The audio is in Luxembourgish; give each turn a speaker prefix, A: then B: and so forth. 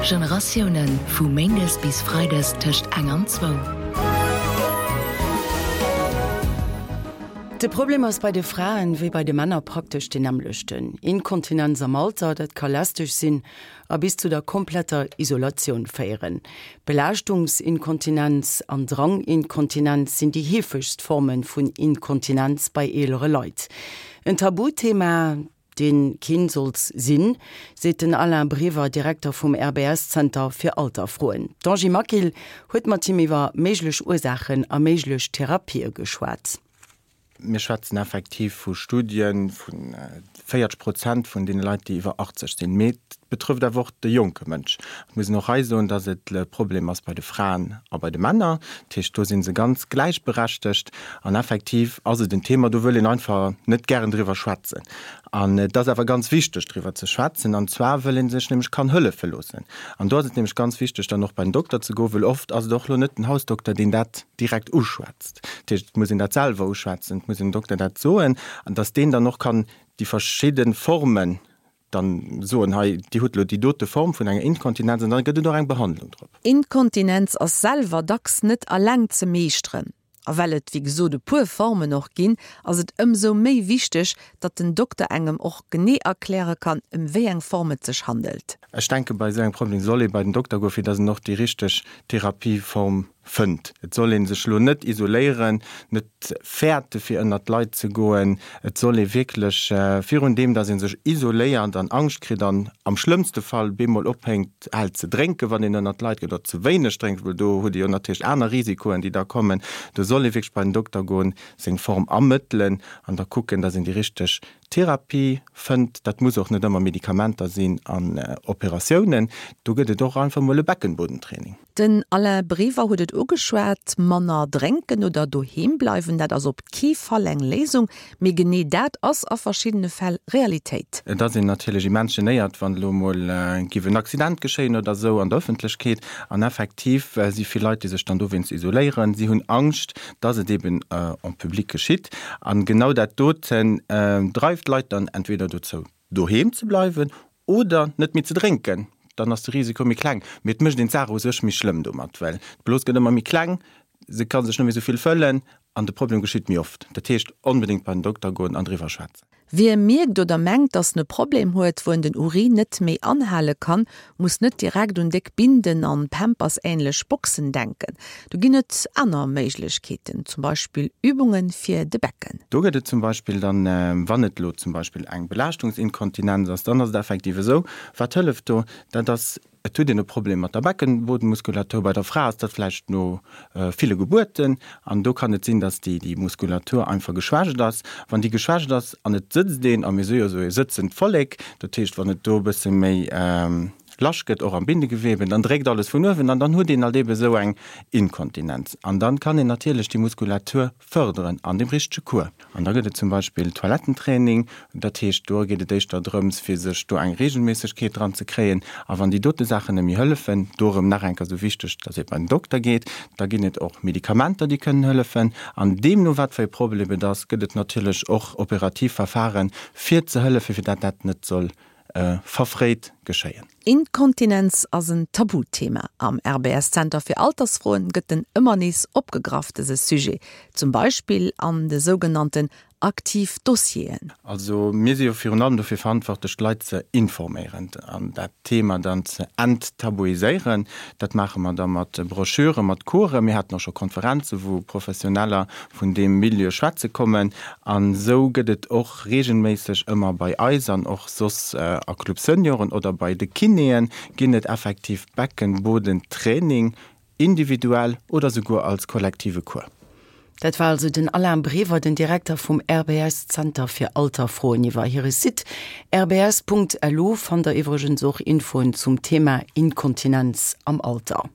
A: Generatiounen, vu méindes bis freides tëscht eng an zwou.
B: De Problem ass bei de Fraen wéi bei de Männer praktesch deen nämmlechten, Inkontinenz am Alter, dat ka lästeg sinn a bis zu der kompletter Isolatioun féieren. Belaaschtungsinkontinenz an Dranginkontinenz sinn déi heefegst Forme vun Inkontinenz bei eelere Leit. En Tabuthema, dee keen sollt sinn, seet den Alain Brever, Direkter vum RBS-Zenter fir Alterfroen. D'Angie Maquil huet mat him iwwer méiglech Ursaachen a méiglech Therapië geschwat.
C: Mir schwätzen effektiv vu Studie vu 40 Prozent vun deene Leit, déi iwwer 80 sinn. Mee et betrëfft awer och de jonke Mënsch. Et muss een och hei soen, datt et e Problem ass bei de Fraen a bei de Männer. Dat heescht, do si se ganz gläichberechtegt. An effektiv ass et en Thema, do wëll een einfach net gären driwwer schwätzen. An et ass awer ganz wichteg, driwwer ze schwätzen, an zwar wëll ee sech nämlech kann hëllefe loossen. An do ass et nämlech ganz wichteg, dann och bei den Dokter ze goen, wëll oft ass et och elo net den Hausdokter, deen dat direkt uschwätzt. Dat heescht, et muss een dat selwer uschwätzen, et muss een dem Dokter dat soen, an datt deen dann och kann déi verschidde Formen dann soen, hei, Dir hutt elo déi dote Form vun enger Inkontinenz, an da gëtt et och eng Behandlung drop.
D: Inkontinenz ass selwer dacks net alleng ze meeschteren. A well et wéi gesot e puer Formen och ginn, ass et ëmsou méi wichteg, datt den Dokter engem och genee erkläre kann, ëm wéi eng Form et sech handelt.
C: Ech denke bei esou engem Problem soll ee bei den Dokter goen, fir datt en och déi richteg Therapieform fënnt. Et soll ee sech elo net isoléieren, net fäerte fir ënnert d'Leit ze goen. Et soll ee wierklech virun deem, datt ee sech isoléiert an Angscht kritt an am schlëmmste Fall bemol ophénkt hält ze drénken, wann een ënnert d'Leit geet, oder ze wéineg drénkt, well do huet ee jo natierlech aner Risikoen, déi da kommen. Do soll ee wierklech bei den Dokter goen, seng Form ermëttelen an da kucken, datt een déi richteg Therapie fënnt. Dat muss och net ëmmer Medikamenter sinn an Operatiounen. Do gëtt et och einfach mol e Beckenbodentraining.
D: Den Alain Brever huet et ugeschwat, manner drénken oder doheem bleiwen, dat ass op kee Fall eng Léisung. Mee genee dat ass a verschiddene Fäll Realitéit.
C: Et ass een natierlech immens genéiert, wann elo emol giff en Accident geschéien oder esou an der Ëffentlechkeet. An effektiv si vill Leit, déi sech dann dowéinst isoléieren. Si hunn Angscht, dass et eben en public geschitt. An genau dat doten dreift d'Leit dann entweder dozou, doheem ze bleiwen oder net méi ze drénken. Dann ass de Risiko méi kleng. Mee et mécht een d'Saach u sech méi schlëmm domat, well d'Blos gëtt ëmmer méi kleng, se ka sech net méi esou vill fëllen an de Problem geschitt méi oft. Dat heescht, onbedéngt bei den Dokter goen an driwwer schwätzen.
D: Wie mierkt oder mengt, dass en e Problem huet, wou en den Urin net méi anhale kann, muss net direkt un déck Binden an Pampers-änlech Boxen denken. Do ginn et aner Méiglechkeeten, zum Beispill Übunge fir de Becken.
C: Do gëtt et zum Beispill dann, wann et elo zum Beispill eng Belaaschtungsinkontinenz ass, dann ass et effektiv esou, wat hëlleft do? Dat ass Et huet een e Problem mat der Beckenbodenmuskulatur. Bei der Fra ass dat vläicht no ville Gebuerten. An do kann et sinn, dass déi Muskulatur einfach geschwächt ass. Wann déi geschwächt ass an et sëtzt een, a mir si jo esou e sëtzend Vollek, dat heescht, wann et do e bësse méi lasch gëtt, och am Bindegewebe, dann dréckt alles vun uewen an dann huet een halt eebe esou eng Inkontinenz. An dann kann een natierlech déi Muskulatur fërderen an dem richtege Cours. An da gëtt et zum Beispill Toilettentraining, dat heescht do geet et éischter drëms fir sech do eng Regelméissegkeet dran ze kréien. A wann déi dote Saachen net méi hëllefen, do erëm nach eng Kéier esou wichteg, dass ee bei den Dokter geet, da ginn et och Medikamenter déi kënnen hëllefen. An deemno wat fir e Problem et ass, gëtt et natierlech och operativ Verfaren fir ze hëllefen, fir dat dat net soll verfréit geschéien.
D: Inkontinenz ass en Tabuthema. Am RBS-Zenter fir Altersfroen gëtt en ëmmer nees opgegraff, dëse Sujet, zum Beispill an de sougenannten aktiv Dossieren.
C: Also mir si jo virun allem dofir verantwortlech, d'Leit ze informéieren an dat Thema dann ze enttabuiséieren. Dat maache mer da mat Broschüren, mat Coursen. Mir haten och scho Konferenzen, wou Professioneller vun deem Milieu schwätze kommen. An esou gëtt et och regelméisseg ëmmer bei eis an och soss a Club Senioren oder bei de Kinéen ginn et effektiv Beckenbodentraining, individuell oder souguer als kollektive Cours.
B: Dat war also den Alain Brever, den Direkter vum RBS Zenter fir Alterfroen. Iwwer hire Site rbs.lu fannt der iwwregens och Infoen zum Thema Inkontinenz am Alter.